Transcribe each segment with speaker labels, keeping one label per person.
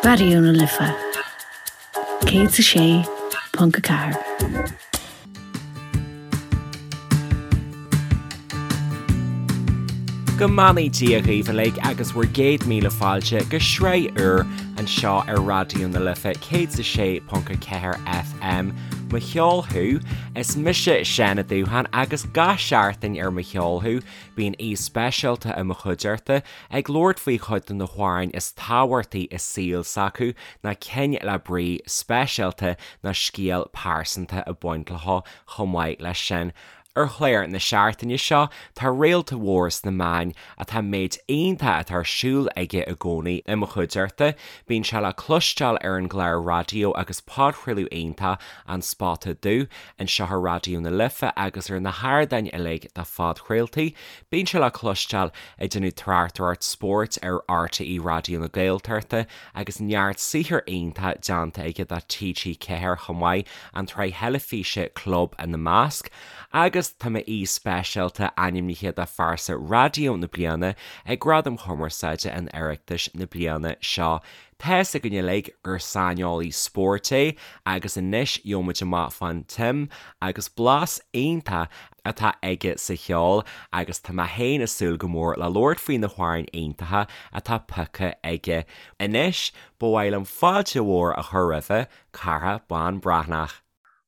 Speaker 1: Raidió na Life 106.4.
Speaker 2: Go mbeannaí Dia dhaoibh uilig agus bhur gcéad míle fáilte go sraith úr anseo ar Raidió na Life 106.4 FM, Mo Cheol Thú. Is mise Seán Ó Dúcháin agus gach seachtain ar Mo Cheol Thú bíonn aoi speisialta i mo chuideachta ag labhairt faoi chuid de na hamhráin is tábhachtaí i saol s'acu, nó cinn le brí speisialta nó scéal pearsanta ag baint leo chomh maith leis sin. Ar chlár na seachtaine seo, tá réalta mhór sna meáin atá méid iontach atá ar siúl aige i gcónaí i mo chuideachta. Bíonn sé le cloisteáil ar an gclár raidió agus podchraoladh iontach An Spota Dubh anseo ar Raidió na Life agus ar na hardáin uilig do phodchraoltaí. Bíonn sé le cloisteáil ag déanamh tráchtaireacht spóirt ar RTÉ Raidió na Gaeltachta agus neart saothar iontach déanta aige do TG4 chomh maith, an tsraith theilifíse Club ina measc. Agus tá m'aoi speisialta ainmnithe do Phearsa Raidió na Bliana ag Gradaim Chumarsáide an Oireachtais na bliana seo. Tá's againn uilig gur saineolaí spóirt é agus anois gheobhaimid amach fán tsuim agus blas iontach atá aige sa cheol agus tá mé féin ag súil go mór le labhairt faoi na hamhráin iontacha atá pioctha aige. Anois, ba mhaith liom fáilte mhór a chur roimhe, Cárthach Bán Breathnach.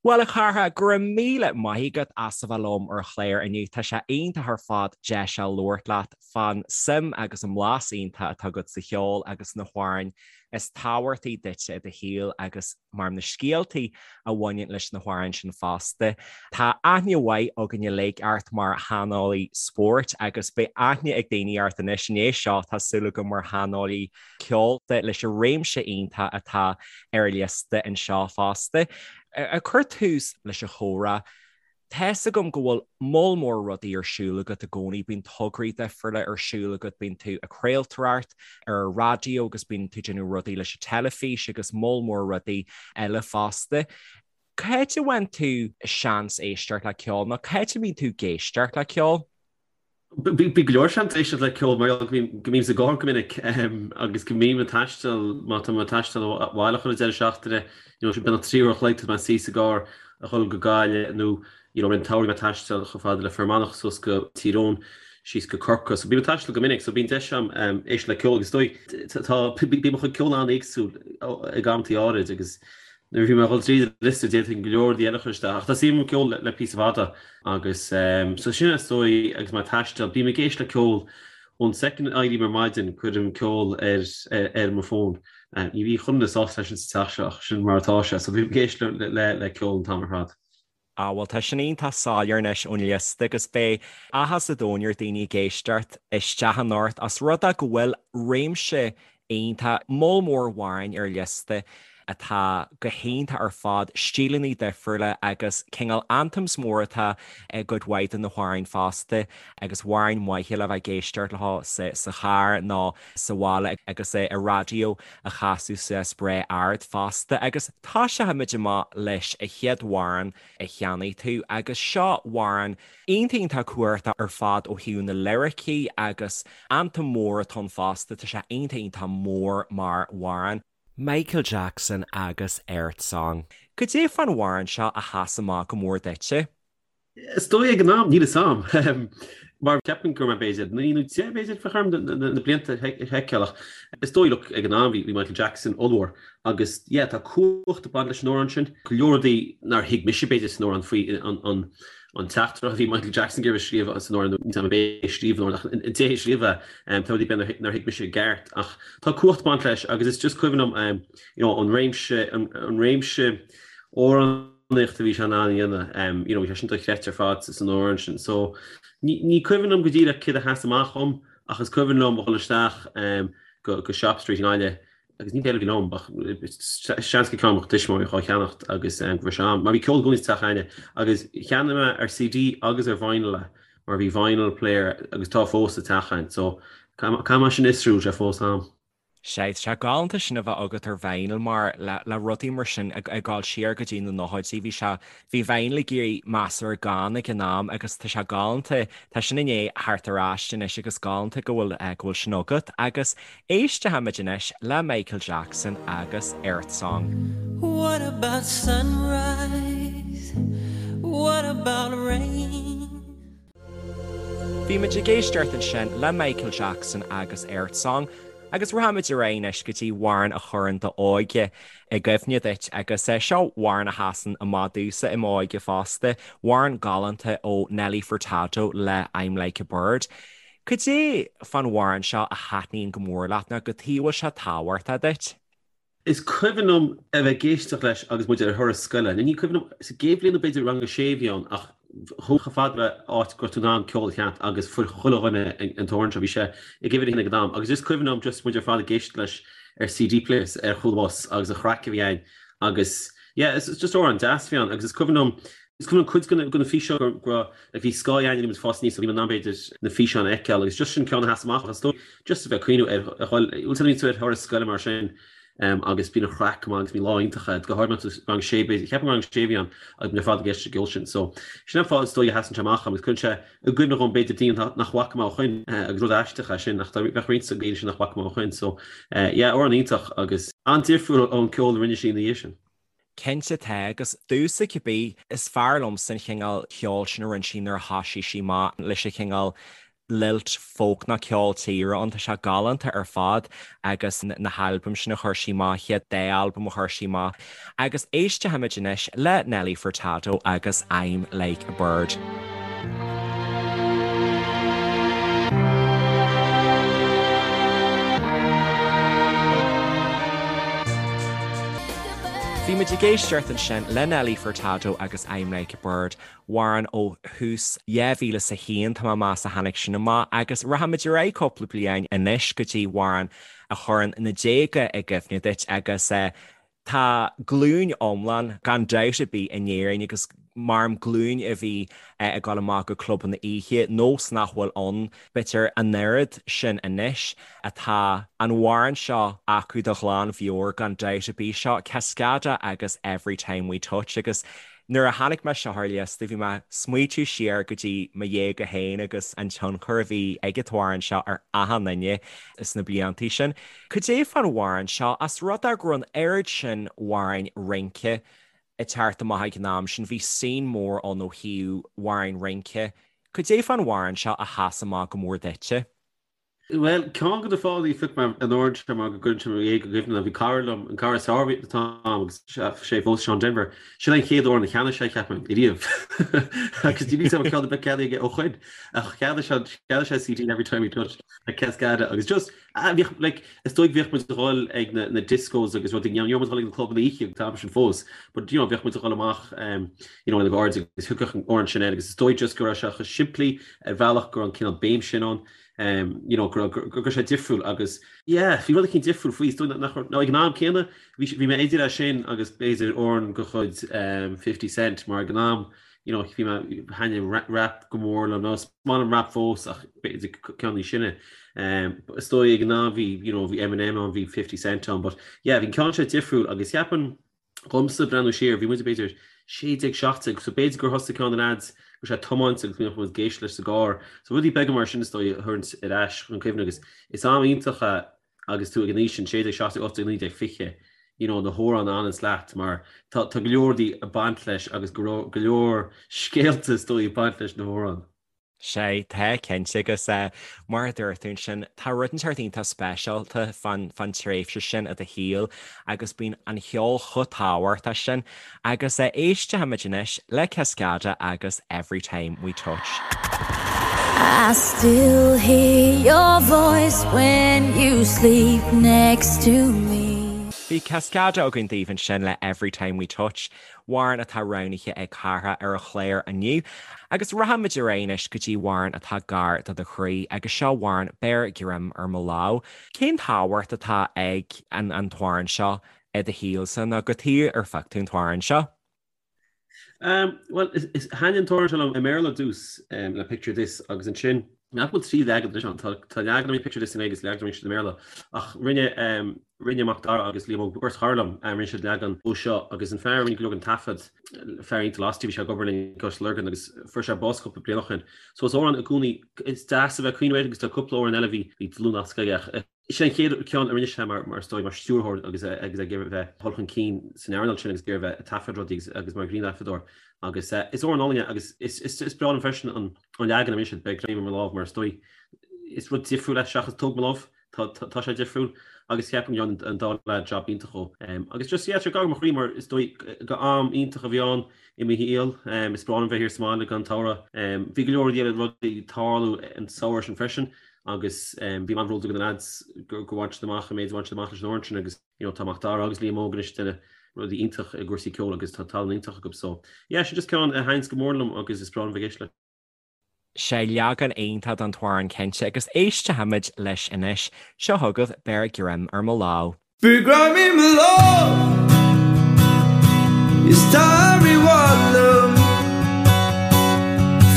Speaker 2: Bhuel, a Chárthaigh, go raibh míle maith agat as a bheith liom ar an chlár inniu. Tá sé iontach ar fad deis a labhairt leat fán suim agus an mblas iontach atá agat sa cheol agus na hamhráin is tábhachtaí duitse i do shaol agus mar na scéaltaí a bhaineann leis na hamhráin sin fosta. Tá aithne mhaith againn uilig ort mar shaineolaí spóirt agus beidh aithne ag daoine ort anois i ndiaidh seo, tá súil agam, mar shaineolaí ceoil leis an réimse iontach atá ar an liosta anseo fosta. Ag cur tús leis an chomhrá, tá's agam go bhfuil moll mór rudaí ar siúl agat i gcónaí, bíonn tograí difriúla ar siúl agat, bíonn tú ag craoltóireacht ar an raidió agus bíonn tú ag déanamh rudaí leis an teilifís agus moll mór rudaí eile fosta. Cá háit a bhfaigheann tú seans éisteacht le ceol nó cá háit a mbíonn tú ag éisteacht le ceol?
Speaker 3: Bíonn go leor seans éisteacht le ceol mar gheall go mbím sa gcarr go minic agus go mbím ag taisteal, má tá mé ag taisteal abhaile chuile deireadh seachtaine, you know, beagnach 3 uair a chloig tá mé suí sa gcarr a dhul go Gaillimh nó you know, i rith an tsamhraidh mé ag taisteal chomh fada le Fear Manach suas go Tír Eoghain, síos go Corcaigh. So bím ag taisteal go minic so bíonn deis agam éisteacht le ceol agus is dóigh tá bíonn mo chuid ceoil an-éagsúil ag amantaí áirid agus Nuair a bhí mé ag dul tríd an liosta d'fhéadfainn go leor rudaí eile a chur isteach ach tá suim agam i gceol le píosa fada agus so sin is dóigh agus mé ag taisteal, bím ag éisteacht le ceol ón soicind a éirím ar maidin cuirim ceol ar ar mo fón. Ní bhíonn chuile dhuine sásta leis sin sa teach seo ach sin mar atá sé so bím ag éisteacht le le ceol an t-am ar fad.
Speaker 2: Á, bhuel, tá sin iontach soiléir anois ón liosta agus beidh áthas an domhain ar daoine ag éisteacht isteach anocht os rud é go bhfuil réimse iontach, moll mór amhráin ar liosta atá go hiontach ar fad, stíleanna difriúla agus cineál anthems mór atá i gcuid mhaith de na hamhráin fosta agus amhráin mhaithe le bheith ag éisteacht leo sa charr nó sa bhaile agus an raidió a chasadh suas breá ard fosta agus toiseochaimid amach leis an chéad amhrán a cheannaigh tú agus seo amhrán iontach iontach cumhachtach ar fad ó thaobh na liricí agus anthem mór atá ann fosta, tá sé iontach iontach mór mar amhrán. Michael Jackson agus Earth Song. Cad é fán amhrán seo a sheas amach go mór duitse?
Speaker 3: Is dóigh ag an am, níl 'fhios a'm, mar ceapaim go raibh mé b'fhéidir 9 nó 10 b'fhéidir bheadh orm na blianta a sheiceáil ach is dóigh look ag an am bhí Michael Jackson ollmhór agus yeah tá cumhacht ag baint leis an amhrán sin. Go leor rudaí nár thuig mise b'fhéidir san amhrán faoi an an teachtaireacht a bhí Michael Jackson ag iarraidh a scríobh san amhrán nó níl 'fhios a'm ab é a scríobh an amhrán ach an té a scríobh é tá rudaí b'fhéidir nár thuig mise i gceart ach tá cumhacht ag baint leis agus is just cuimhin liom you know an réimse an réimse amhrán amhránaíocht a bhí sé in ann a dhéanamh, you know, bhí sé sin dochreidte ar fad san amhrán sin. So, ní, ní cuimhin liom go díreach céard a sheas amach dhom, ach is cuimhin liom a dhul isteach go, go Shop Street i nGaillimh agus ní céard a bhí liom ach seans gur ceann mo thuismitheoirí dhá cheannacht agus go raibh sé a'm, mar bhí ceol i gcónaí sa teach a'inne agus cheannaigh mé ar CD agus ar vinyl é mar bhí vinyl player agus tá fós sa teach a'inn so caithfidh mé sin a fhiosrú, sé fós a'm.
Speaker 2: Sea, tá sé galánta sin a bheith agat ar vinyl mar le le rudaí mar sin ag ag dul siar go dtí na nóchaidí bhí sé bhí vinyl ag éirí measartha gann ag an am agus tá sé galánta tá sin i ndiaidh theacht ar ais anois agus galánta go bhfuil go bhfuil sin agat agus éistfimid anois le Michael Jackson agus Earth Song.
Speaker 4: What about sunrise? What about rain?
Speaker 2: Bhí muid ag éisteacht ansin le Michael Jackson agus Earth Song agus rachaimid ar aghaidh anois go dtí amhrán a chuireann d'óige i gcuimhne duit agus seo amhrán a sheasann amach domhsa i m'óige fosta, amhrán galánta ó Nelly Furtado le I'm Like a Bird. Cad é fán amhrán seo a thaitníonn go mór leat nó cad chuige a bhfuil sé tábhachtach duit?
Speaker 3: Is cuimhin liom a bheith ag éisteacht leis agus muid ar thuras scoile. Ní cuimhin liom, sa gcéad bhliain nó b'fhéidir rang a sé a bhí ann ach chuaigh chomh fada le áit go raibh tú in ann ceol a sheinnt agus fuair chuile dhuine an t-amhrán seo. Bhí sé ag uimhir a haon ag an am agus is cuimhin liom just muid ar fad ag éisteacht leis ar CD players ar chúl an bhus agus an chraic a bhí ann agus yeah it's just amhrán deas a bhí ann agus is cuimhin liom is cuimhin liom cuid de na físeáin go raibh like bhí scáth againn muid fás aníos so bhí muid in ann b'fhéidir na físeáin a fheiceáil agus just sin ceann a sheas amach is dóigh just a bheith ag cuimhneamh ar a dhul bhfuil tú ar thuras scoile mar sin agus bíonn an chraic go maith agus bíonn lá iontach agat go háirithe má tá tú rang sé b'fhéidir cheapaim rang sé a bhí ann agus muid ar fad ag éisteacht leis an gceol sin so sin an fáth is dóigh a sheasann sé amach agus cuireann sé i gcuimhne dhom b'fhéidir daoine nach bhfaca mé ó shoin agus rud aisteach é sin ach bheadh roinnt de na daoine sin nach bhfaca mé ó shoin so yeah amhrán iontach agus an-difriúil ón ceol a rinne sí ina dhiaidh sin.
Speaker 2: Cinnte tá, agus domhsa cibé, is fearr liomsa an chineál ceoil sin a rinne sí nuair a thoisigh sí amach leis an chineál lilt folk nó ceol tíre ann, tá sé galánta ar fad agus na halbaim sin a chuir sí amach, chéad dá albam a chuir sí amach. Agus éistfimid anois le Nelly Furtado agus I'm Like a Bird. Bhí muid ag éisteacht ansin le Nelly Furtado agus I'm Like a Bird, amhrán ó thús 2001, tá mé ag meas a tháinig sin amach, agus rachaimid ar aghaidh cúpla bliain anois go dtí amhrán a chuireann na déaga i gcuimhne duit agus tá glúin iomlán, gan dabht ar bith, in Éirinn agus maram glúin a bhí ag dul amach go clubanna oíche, nós nach bhfuil ann b'fhéidir an oiread sin anois, atá an amhrán seo acu de ghlanmheabhair gan dabht ar bith, seo Cascada agus Every Time We Touch agus nuair a chonaic mé seo ar liosta bhí mé ag smaoitiú siar go dtí mo dhéaga féin agus an tionchar a bhí ag an t-amhrán seo ar achan duine sna bliantaí sin. Cad é fán amhrán seo, as rud é go raibh an oiread sin amhráin rince ag teacht amach ag an am sin, bhí scene mór ann ó thaobh amhráin rince, cad é fán amhrán seo a sheas amach go mór duitse?
Speaker 3: Bhuel, ceann de na fáthanna a phioc mé an amhrán seo mar go gcuireann sé mo dhéaga i gcuimhne dom. Bhí cara liom, an cara is fearr a bhí an t-am agus sé fós Seán Denver, sin an chéad amhrán a cheannaigh sé, cheapfainn, ariamh. Agus níl a fhios agam an ceann ar bith ceannaithe aige ó shoin. Ach cheannaigh sé, cheannaigh sé CD Every Time We Touch le Cascada agus just, ah, bhíodh, like, is dóigh bhíodh muid ag dhul ag na, na discos agus rudaí, ní raibh muid ag dhul ag na clubanna oíche an t-am sin fós, but, you know, bhíodh muid ag dhul amach, um, you know, lena gcairde agus thiocfadh an amhrán sin air agus is dóigh just go raibh sé chomh simplí ar bhealach go raibh an cineál béim sin ann. you know, go raibh sé difriúil agus, yeah, bhí rud eicínt difriúil faoi, is dóigh nach raibh, nó ag an am céanna, bhí, bhí mé idir é sin agus b'fhéidir amhrán de chuid 50 Cent mar ag an am, you know, bhí mé, thaitnigh rap go mór liom, nó is maith liom rap fós ach b'fhéidir ceann níos sine. Is dóigh ag an am bhí, you know, bhí Eminem ann, bhí 50 Cent ann, but yeah, bhí an ceann seo difriúil agus cheapfainn, Dhomsa, breathnú siar, bhí muid b'fhéidir 16, 17, so b'fhéidir gur thosaigh ceann de na leaids go raibh sé ag tiomáint agus bhíodh muid ag éisteacht leis sa gcarr. So rudaí beaga mar sin is dóigh a thabhairt ar ais chun cuimhne agus is am iontach é agus tú ag an aois sin, 16, 17, 18, 19, 20, you know, na hamhráin a fhananns leat mar tá go leor rudaí ag baint leis agus go leor scéalta is dóigh ag baint leis na hamhráin.
Speaker 2: Sea, tá, cinnte, agus mar a dúirt tú ansin, tá rud inteacht iontach speisialta fán tréimhse sin i do shaol agus bíonn an cheol chomh tábhachtach sin. Agus éistfimid anois le Cascada agus Every Time We Touch.
Speaker 4: I still hear your voice when you sleep next to me.
Speaker 2: Bhí Cascada againn daoibh ansin le Every Time We Touch. Amhrán atá roghnaithe ag Cárthach ar an chlár inniu. Agus rachaimid ar aghaidh anois go dtí amhrán atá gar do do chroí, agus seo amhrán Beir Greim ar Mo Lámh. Cén tábhacht atá ag an an t-amhrán seo i do shaolsa, nó cad chuige ar phioc tú an t-amhrán seo?
Speaker 3: Bhuel, thaitin an t-amhrán seo liom i mBéarla ar dtús, le Picture This, agus ansin. Nach bhfuil 3 leagan anois ann? Tá leagan a rinne Picture This i nGaeilge agus leagan a rinne siad i mBéarla. Ach rinne rinne Macdara agus Liam Óg, beirt chara liom, rinne siad leagan dhó seo agus an fear a rinne go leor den taifead, fear iontach lasti, bhí sé ag obair linn i gCois Lurgan agus fuair sé bás cúpla bliain ó shin. So is amhrán i gcónaí, is deas a bheith ag cuimhneamh air agus tá cúpla amhrán eile a bhí bhí dlúthnasc aige ach Sin an chéad ceann a rinne sé mar, mar is dóigh, mar stiúrthóir agus é agus é ag iarraidh bheith dul chun cinn san earnáil sin agus ag iarraidh bheith ag taifead rudaí agus agus mar ghrianghrafadóir. Agus is amhrán álainn é agus is is is breá liom freisin an an leagan a rinne siad, Beir Greim ar Mo Lámh mar is dóigh is rud difriúil é seachas Tóg Mo Lámh, tá tá tá sé difriúil agus ceapaim go ndearna an dá leaid jab iontach dhó. Agus just yeah, tá sé gar do mo chroí mar is dóigh go am iontach a bhí ann i mo shaol. Is breá liom bheith thiar sa mbaile don tsamhradh. Bhí go leor rudaí eile ag tarlú an samhradh sin freisin. agus bhí mé an-bhródúil de na lads gur bhain siad amach an méid a bhain siad amach leis an amhrán sin agus you know tá Macdara agus Liam Óg anois ag déanamh rudaí iontach i gcúrsaí ceoil agus tá tallann iontach acu so yeah sin just ceann a thaitníonns go mór liom agus is breá liom bheith ag éisteacht leis.
Speaker 2: Sé leagan iontach den t-amhrán cinnte agus éistfimid leis anois. Seo chugaibh Beir Greim ar Mo Lámh.
Speaker 5: Beir greim ar mo lámh Is tar i bhfad liom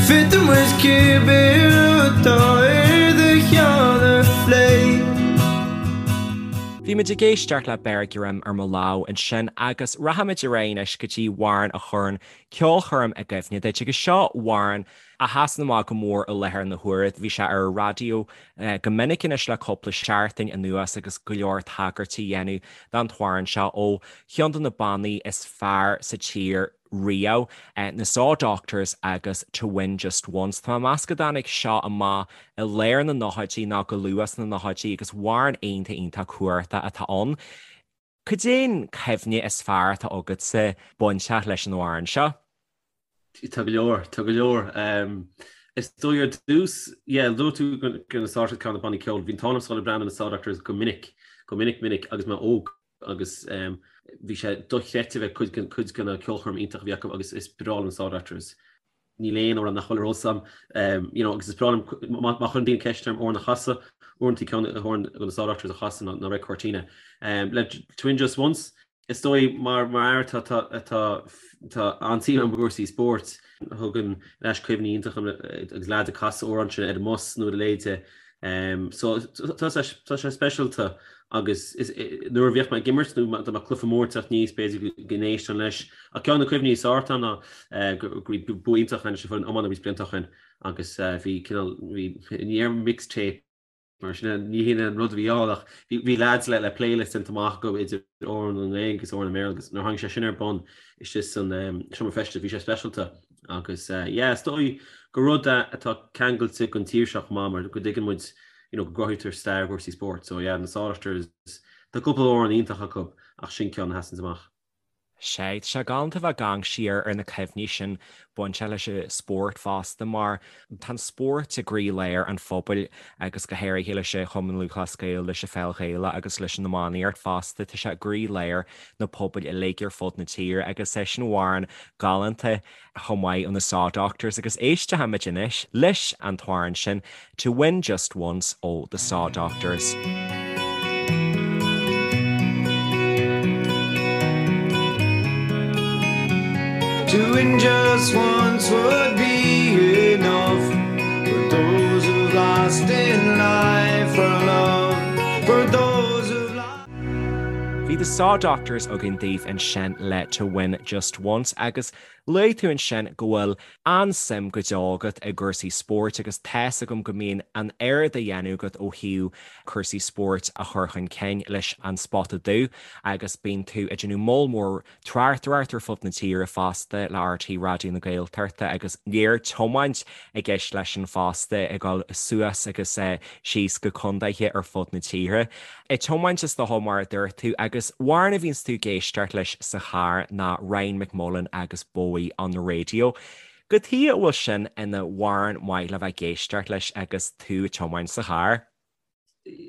Speaker 5: Féadfaidh muid cibé rud atá ar do cheann a phlé.
Speaker 2: Bhí muid ag éisteacht le Beir Greim ar Mo Lámh ansin agus rachaimid ar aghaidh anois go dtí amhrán a chuireann ceolchoirm i gcuimhne duit agus seo amhrán a sheasann amach go mór i láthair na huaire. Bhí sé ar an raidió go minic anois le cúpla seachtain anuas agus go leor tagairtí á dhéanamh don t-amhrán seo ó cheann de na bannaí is fearr sa tír riamh, na Saw Doctors agus To Win Just Once. Tá mé ag meas go dtáinig seo amach i lár na nóchaidí nó go luath sna nóchaidí agus amhrán iontach iontach cumhachtach atá ann. Cad é an cuimhne is fearr atá agatsa bainteach leis an amhrán seo?
Speaker 3: Tá go leor, tá go leor. Is dóigh ar dtús, yeah, luaigh tú go na Saw Doctors ceann de na bannaí ceoil. Bhí an t-ádh liom a dhul ag breathnú ar na Saw Doctors go minic, go minic minic agus mé óg agus bhí sé dochreidte bheith cuid den cuid de na ceolchoirm iontach a bhí acu agus is breá liom na Saw Doctors. Níl aon amhrán nach bhfuil ar eolas agam, you know, agus is breá liom má chuireann daoine ceist orm amhrán a chasadh, uaireanta ceann amhrán de na Saw Doctors a chasadh ná Red Cortina. Le To Win Just Once, Is dóigh, mar mar fhear atá atá atá an-suim agam i gcúrsaí spóirt, thugann ar ais cuimhní iontacha agus leaids ag casadh amhrán sin ar an mbus nó ar a leithéid. So tá sé tá sé speisialta agus is nuair a bhíodh mé ag imirt nó dá mbeadh cluiche mór ag teacht aníos b'fhéidir go n-éistfinn leis. Ach ceann de na cuimhní is fearr atá ná go raibh bua iontach againn leis an bhfoireann iomána roinnt blianta ó shin agus bhí cineál bhí ní raibh mixtape Mar sin, ní hin an rud a bhí ann ach bhí leaids le playlist déanta amach acu idir amhráin i nGaeilge agus amhráin i mBéarla agus nuair a tháinig sé sin ar bun istigh san seomra feistis bhí sé speisialta agus yeah is dóigh gur rud é atá ceangailte den tír seo chomh maith mar go dtuigeann muid you know go gcruthaítear stair i gcúrsaí spóirt so yeah na Saw Doctors tá cúpla amhrán iontach acu ach sin ceann a sheasanns amach.
Speaker 2: Sea, tá sé galánta bheith ag amharc siar ar na cuimhní sin bainteach leis an spórt fosta mar tá an spórt i gcroílár an phobail agus go háirithe leis an Chumann Lúthchleas Gael, leis an Pheil Ghaelach agus leis an iománaíocht fosta. Tá sé i gcroílár na pobail uilig ar fud na tíre agus é sin amhrán galánta chomh maith ó na Saw Doctors agus éistfimid anois leis an t-amhrán sin To Win Just Once ó The Saw Doctors.
Speaker 5: To win just once would be enough For those who've lost in life for love For those who've lost
Speaker 2: Bhí The Saw Doctors againn daoibh ansin le To Win Just Once agus Luaigh tú ansin go bhfuil an-suim go deo agat i gcúrsaí spóirt agus tá's agam go mbíonn an oiread á dhéanamh agat ó thaobh cúrsaí spóirt a chur chun cinn leis An Spota Dubh agus bíonn tú ag déanamh moll mór tráchtaireacht ar fud na tíre fosta le RTÉ Raidió na Gaeltachta agus léir tiomáint i gceist leis sin fosta ag dul suas agus síos go contaetha ar fud na tíre. Ag tiomáint is dócha mar a dúirt tú agus amhrán a bhíonns tú ag éisteacht leis sa charr ná Ryan McMullan agus Bowie on the Radio. Cad chuige a bhfuil sin ina amhrán maith le bheith ag éisteacht leis agus tú ag tiomáint sa charr?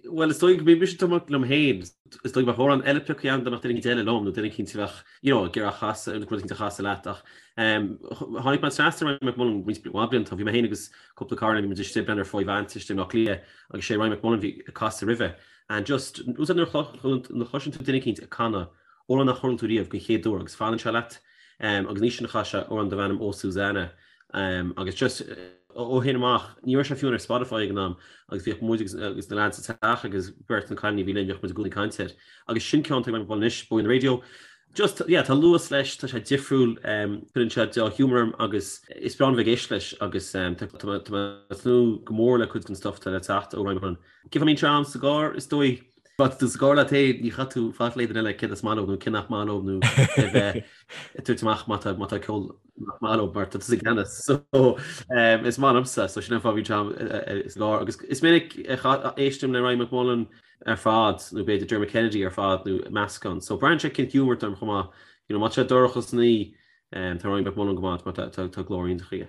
Speaker 3: Bhuel, is dóigh go mbím mise ag tiomáint liom féin. Is dóigh go mbeadh amhrán eile pioctha agam dá mbeadh duine éicint eile liom nó duine éicint a bheadh, you know, ag iarraidh a chasadh, rud éicint a chasadh leat ach tháinig mé trasna ar Ryan McMullan roinnt mhaith blianta. Bhí mé féin agus cúpla cara bhí muid istigh ag breathnú ar Five Ants istigh i mBleá Cliath agus sé Ryan McMullan a bhí ag casadh roimhe. And just, úsáid nuair a chloiseann tú duine éicint ag canadh amhrán nach chuala tú riamh den chéad uair agus fanann sé leat. Agus an oíche sin chas sé amhrán darb ainm Oh Susanna. Agus just ó shin amach, ní raibh sé fiú ar Spotify ag an am agus bhíodh muid agus na lads sa teach agus beirt na cailíní a bhí linn, bhíodh muid i gcónaí ag caint air. Agus sin ceann atá ag Ryan McMullan anois, Bowie on the Radio. Just, yeah, tá luas leis, tá sé difriúil, cuireann sé dea-ghiúmar orm agus is breá liom bheith ag éisteacht leis agus tá mé ag tnúth go mór le cuid den stuff atá le teacht ó Ryan McMullan. Cé fá mbíonn sé a'm sa gcarr, is dóigh. Má tá tú sa gcarr leat féin, ní chaithfidh tú faic le duine eile céard is maith leo nó cé nach maith leo nó a bheith ag tabhairt amach má tá má tá ceol nach maith leo mar tá tusa i gceannas. So is maith liomsa, so sin an fáth a bhíonn sé a'm sa gcarr. Agus is minic a éistim le Ryan McMullan ar fad nó b'fhéidir Dermot Kennedy ar fad nó meascán. So braitheann sé cén giúmar atá orm chomh maith. You know, má tá sé dorcha san oíche, tá Ryan McMullan go maith mar tá glór iontach aige.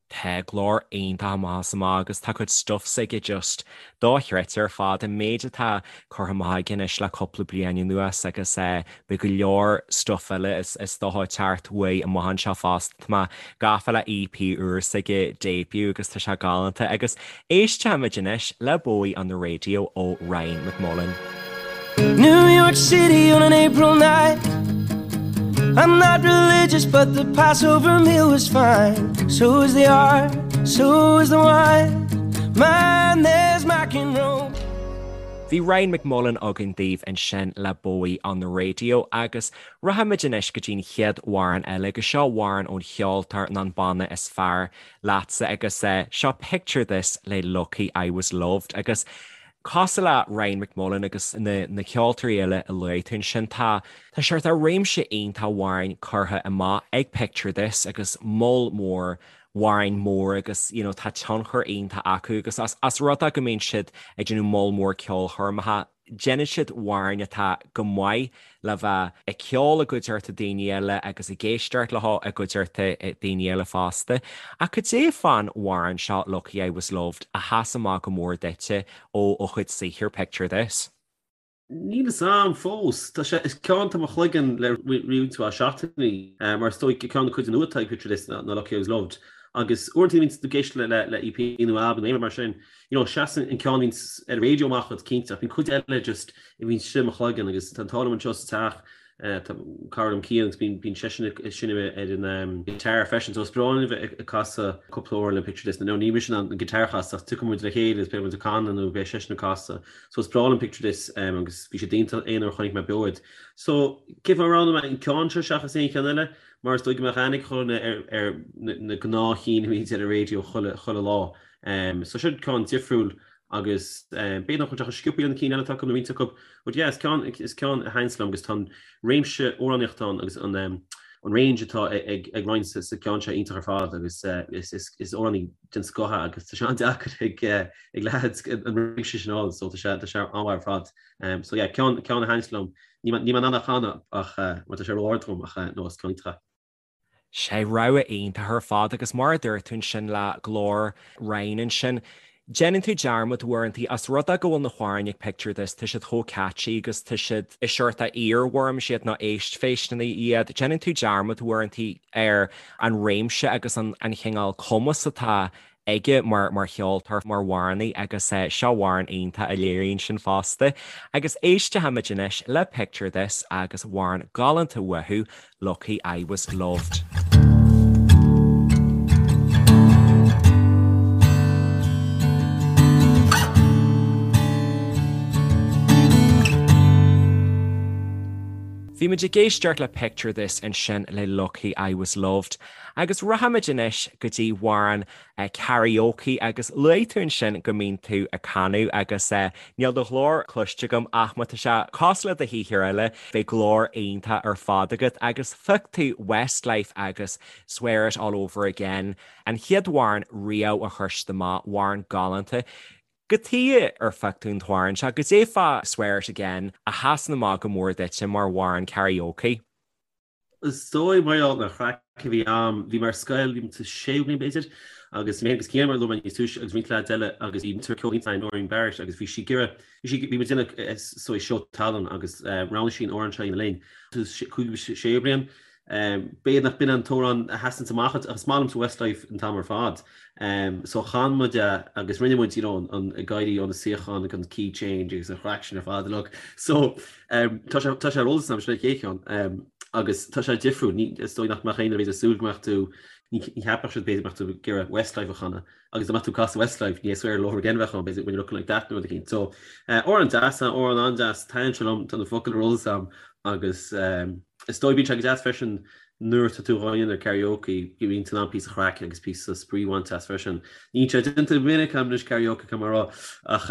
Speaker 2: Tá glór iontach amach is amach agus tá cuid stuff s'aige just dochreidte ar fad, an méid atá curtha amach aige anois le cúpla bliain anuas agus beidh go leor stuff eile is dócha ag teacht uaidh amach anseo fosta. Tá mé gafa le EP úr s'aige, Debut, agus tá sé galánta agus éistfimid anois le Bowie on the Radio ó Ryan McMullan.
Speaker 5: New York City on an April night I'm not religious but the Passover meal was fine So is the art, so is the wine Man, there's Mac and roll
Speaker 2: Bhí Ryan McMullan againn daoibh ansin le Bowie on the Radio agus rachaimid anois go dtí'n chéad amhrán eile agus seo amhrán ón cheoltóir nó an banna is fearr leatsa agus seo Picture This le Lucky I Was Loved agus Cosúil le Ryan McMullan agus na na ceoltóirí eile a luaigh tú ansin, tá tá seort réimse iontach amhráin curtha amach ag Picture This agus moll mór amhráin mór agus you know tá tionchar iontach acu agus as as rud é go mbíonn siad ag déanamh moll mór ceolchoirmeacha, déanann siad amhráin atá go maith le bheith ag ceol i gcuideachta daoine eile agus ag éisteacht leo i gcuideachta daoine eile fosta. Ach cad é fán amhrán seo Lucky I Was Loved a sheas amach go mór duitse ó ó chuid saothair Picture This?
Speaker 3: Níl fhios a'm fós. Tá sé, is ceann atá i mo chloigeann le roinnt mhaith seachtainí, mar is dóigh ceann de cuid nua atá ag Picture This ná Lucky I Was Loved. Agus uaireanta bíonn tú ag éisteacht le le EP nó albam nó aon rud mar sin, you know, seasann an ceann a bhíonns ar an raidió amach duit cinnte, ach bíonn cuid eile just a bhíonn istigh i mo chloigeann agus tá an t-ádh liom anseo sa teach, tá cara liom Cian agus bíonn, bíonn seisean ag seinm ar an guitar freisin, so is breá linn a bheith ag casadh cúpla amhrán le Picture This, nó ní mise in ann an guitar a chasadh ach tiocfaidh muid le chéile agus beidh muid ag canadh nó beidh seisean ag casadh, so is breá liom Picture This agus bhí siad iontach aon uair a chonaic mé beo iad. So cén fáth a roghnaigh mé an ceann seo seachas aon cheann eile? Mar is dóigh go mbeadh aithne ag chuile dhuine ar, ar na gnáthchinn a bhíonns ar an raidió chuile, chuile lá. So seo ceann difriúil agus b'fhéidir nach bhfuil sé chomh sciobtha le na cinn eile atá acu nó roinnt acu. But yeah, is ceann, is ceann a thaitníonns liom agus tá an réimse amhránaíochta ann agus an an range atá ag ag Ryan sa ceann seo iontach ar fad agus is is is amhránaí den scoth é agus tá sé an-deacair ag ag leaids an réimse sin a fháil so tá sé tá sé an-mhaith ar fad. So yeah, ceann ceann a thaitníonns liom. Níl mé níl mé in ann a chanadh ach mar tá sé ró-ard dom ach no is ceann iontach é.
Speaker 2: Sé rogha iontach ar fad agus mar a dúirt tú ansin le glór Ryan ansin, déanann tú dearmad uaireanta as rud é go bhfuil na hamhráin ag Picture This, tá siad chomh catchy agus tá siad is seort earworms iad nó éistphéisteanna iad, déanann tú dearmad uaireanta ar an réimse agus an chineál cumas atá aige mar mar cheoltóir, mar amhránaí agus seo amhrán iontach a léiríonn sin fosta. Agus éistfimid anois le Picture This agus amhrán galánta uathu, Lucky I Was Loved. Bhí muid ag éisteacht le Picture This ansin le Lucky I Was Loved. Agus rachaimid anois go dtí amhrán karaoke agus luaigh tú ansin go mbíonn tú ag canadh agus níl do ghlór cloiste agam ach má tá sé cosúil le do shaothar eile beidh glór iontach ar fad agat agus phioc tú Westlife agus Swear It All Over Again, an chéad amhrán riamh a chuir siad amach, amhrán galánta. Cad chuige ar phioc tú an t-amhrán seo, cad é fá Swear It Again a sheasann amach go mór duitse mar amhrán karaoke.
Speaker 3: Is dóigh mar gheall ar an chraic a bhí a'm, bhí mé ar scoil, bhí mé sa séú bliain b'fhéidir, agus mé agus Cian mar a luaigh mé níos túisce agus roinnt leaids eile agus bhí múinteoir ceoil iontach a'inn, Noreen Barrett, agus bhí sí ag iarraidh, bhí sí, bhí muid ag déanamh saghas seó tallann agus roghnaigh sí an amhrán seo a dhéanamh linn. Sa cúigiú séú bliain, b'fhéidir nach b'in an t-amhrán a sheasanns amach ach is maith liomsa Westlife an t-am ar fad. So chan muid é agus rinne muid, you know, an ag éirí ó na suíocháin agus an key change agus an chraic sin ar fad uilig. So Tá sé tá sé ar eolas agam sin an chéad cheann agus tá sé difriúil. Ní is dóigh nach mbeadh éinne b'fhéidir ag súil go mbeadh tú. Ní cheapfadh siad b'fhéidir go mbeadh tú ag iarraidh Westlife a chanadh agus dá mbeadh tú ag casadh Westlife ní hé Swear It All Over Again a bheadh ann b'fhéidir When You're Looking Like That nó rud eicínt. So amhrán deas, amhrán an-deas, taitníonn sé liom, tá na focail ar eolas agam agus is dóigh bíonn sé go deas freisin nuair atá tú dhá dhéanamh ar karaoke go mbíonn tú in ann píosa chraic agus píosa spraoi a bhaint as freisin. Níl sé déanta go minic agam anois karaoke caithfidh mé a rá ach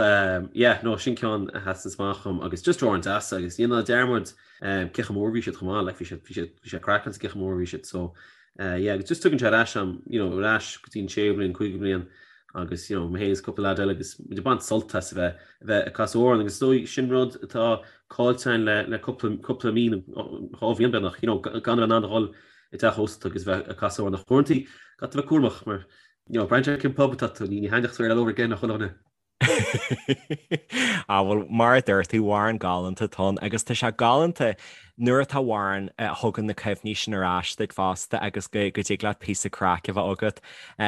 Speaker 3: yeah no sin ceann a sheasann amach dhom agus just amhrán deas agus ní ná dearmad cé chomh mór a bhí siad chomh maith like bhí siad bhí siad bhí sé craiceáilte cé chomh mór a bhí siad so Yeah agus just tugann sé ar ais am, you know, ar ais go dtí an séú bliain, cúigiú bliain agus, you know, mé féin is cúpla leaid eile agus muid ag baint sult as a bheith, a bheith ag casadh amhrán agus is dóigh sin rud atá caillte againn le, le cúpla, cúpla mí nó dhá bhliain beagnach, you know, gan a bheith in ann a dhul i dteach ósta agus bheith ag casadh amhrán ach uaireanta caithfidh tú bheith cúramach mar, you know, braitheann sé cén pub atá tú, ní, ní thaitneodh Swear It All Over Again le chuile dhuine.
Speaker 2: Á bhuel, mar a dúirt tú, amhrán galánta atá ann agus tá sé galánta nuair atá amhrán a thugann na cuimhní sin ar ais duit fosta agus go dtig leat píosa craic a bheith agat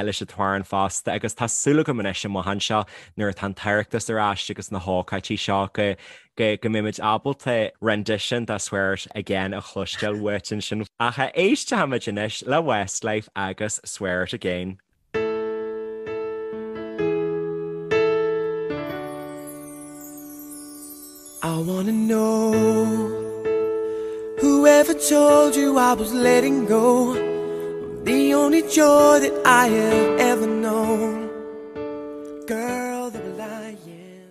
Speaker 2: leis an t-amhrán fosta agus tá súil agam anois amach anseo nuair atá an tOireachtas ar ais agus na hócáidí seo go go go mbeimid ábalta rendition de Swear It Again a chloisteáil uait ansin. Ach éistfimid anois le Westlife agus Swear It Again.
Speaker 5: I wanna know Whoever told you I was letting go Of the only joy that I have ever known Girl, they're lying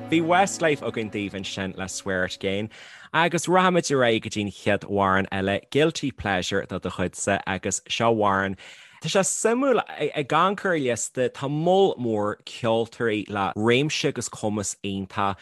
Speaker 2: Bhí Westlife againn daoibh ansin le Swear It Again agus rachaimid ar aghaidh go dtí'n chéad amhrán eile, Guilty Pleasure de do chuidse agus seo amhrán Tá sé suimiúil, ag amharc ar an liosta, tá moll mór ceoltóirí le réimse agus cumas iontach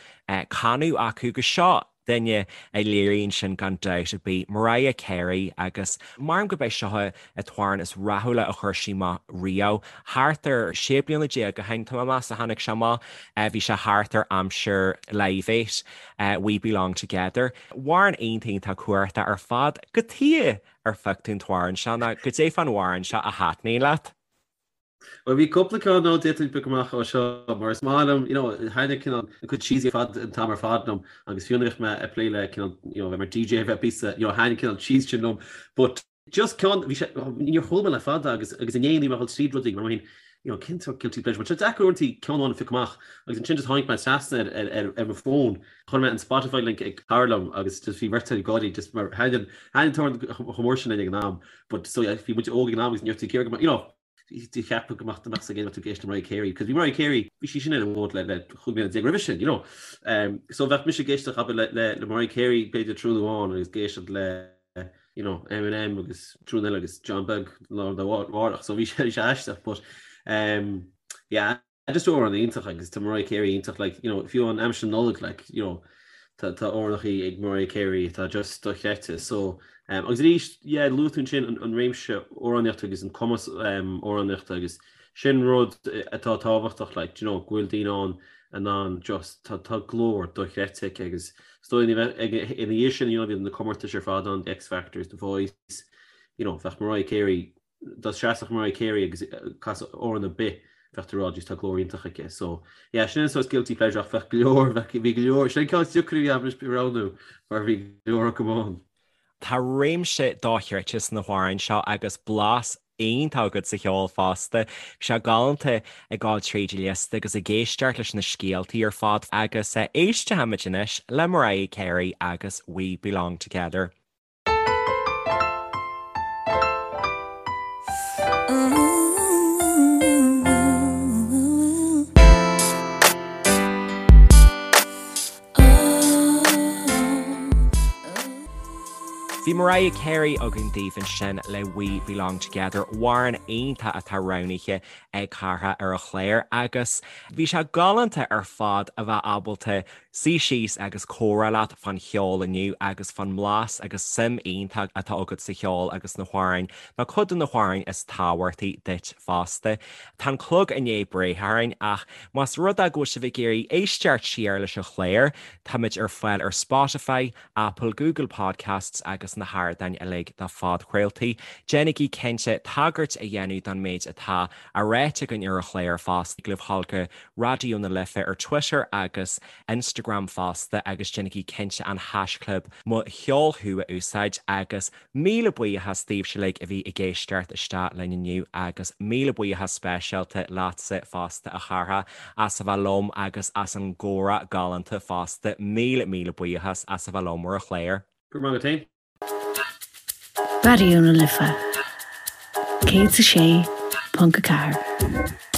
Speaker 2: canadh acu agus seo duine a léiríonn sin gan dabht ar bith, Mariah Carey agus measaim gurb é seo an t-amhrán is rathúla a chuir sí amach riamh. Thart ar 16 bliana ó shin, tá mé ag meas, a tháinig sé amach. Bhí sé thart ar aimsir Live Aid, We Belong Together. Amhrán iontach iontach cumhachtach ar fad. Cad chuige ar phioc tú an t-amhrán seo nó cad é fán amhrán seo a thaitníonn leat?
Speaker 3: Bhuel, bhí cúpla ceann ann d'fhéadfainn piocadh amach ó seo, mar is maith liom, you know, thaitnigh cineál an cuid cheesy ar fad an t-am ar fad liom, agus fiú nuair a bhíodh mé ag plé le cineál, you know, bheith mar DJ, bheith píosa, you know, thaitnigh cineál cheese sin liom, but just ceann, bhí sé, níor chuala mé le fada agus, agus inné ní mé ag dul tríd rudaí, mar mé féin, you know, cén sórt guilty pleasure, mar tá sé deacair uaireanta ceann amháin a phiocadh amach, agus ansin just tháinig mé trasna ar, ar, ar, ar mo fón, chuir mé an Spotify link ag cara liom agus just bhí beirt ag gáirí just mar thaitnigh an, thaitnigh an t-amhrán chomh mór sin linn ag an am, but so yeah, bhí muid óg ag an am agus ní raibh tú ag iarraidh go mbeadh, you know, cheapfá go mbeadh mbeadh ag tú ag éisteacht le Mariah Carey, cos bhí Mariah Carey, bhí sí sin ar an bhfód le le 15 bliana roimhe sin, you know. Um, so bheadh mise ag éisteacht abair le, le, le Mariah Carey b'fhéidir tráthnóna amháin agus ag éisteacht le you know, Eminem agus tráthnóna eile agus John Beag lá arna mhárach, so bhí sé aisteach, but um, yeah, Just amhrán iontach agus tá Mariah Carey iontach like you know fiú an aimsir Nollag like you know tá tá amhránachaí ag Mariah Carey atá just dochreidte so um, agus arís yeah luaigh tú ansin an, an réimse amhránaíochta agus an cumas um, amhránaíochta agus sin rud atá tábhachtach like you know go bhfuil daoine ann in ann just tá tá glór dochreidte aici agus is dóigh ina dhiaidh sin you know bhí na comórtais ar fad ann the X Factors the Voice you know bheadh Mariah Carey dá seasfadh Mariah Carey agus casadh amhrán ar bith bheadh tú ag rá just tá glór iontach aici. So yeah sin an sórt guilty pleasure ach bheadh go leor bheadh bhí go leor sin an ceann is deacra a bhí agam anois a roghnú mar bhí go leor acu ann.
Speaker 2: Tá réimse dochreidte sna hamhráin seo agus blas iontach agat sa cheol fosta. Bhí sé galánta ag gabháil tríd an liosta agus ag éisteacht leis na scéaltaí ar fad agus éistfimid anois le Mariah Carey agus We Belong Together. Bhí Mariah Carey againn daoibh ansin le We Belong Together, amhrán iontach atá roghnaithe ag Cárthach ar an chlár agus bhí sé galánta ar fad a bheith ábalta suí síos agus comhrá leat fán cheol inniu agus fán mblas agus suim iontach atá agat sa cheol agus na hamhráin, nó cuid de na hamhráin is tábhachtaí duit fosta. Tá an clog i ndiaidh breith orainn ach más rud é go bhfuil sibh ag iarraidh éisteacht siar leis an chlár, táimid ar fáil ar Spotify, Apple, Google Podcasts agus. agus na hardáin uilig do phodchraoltaí. Déanaigí cinnte tagairt a dhéanamh don méid atá á ráite againn ar an chlár fosta. Tig libh dhul go Raidió na Life ar Twitter agus Instagram fosta agus déanaigí cinnte an haischlib Mo Cheol Thú a úsáid agus Míle buíochas daoibhse uilig a bhí ag éisteacht isteach linn inniu agus míle buíochas speisialta leatsa fosta a Chárthaigh as a bheith liom agus as an gcomhrá galánta fosta. Míle míle buíochas as a bheith liom ar an chlár.
Speaker 3: Go raibh maith agat féin.
Speaker 1: Raidió na Life 106.4.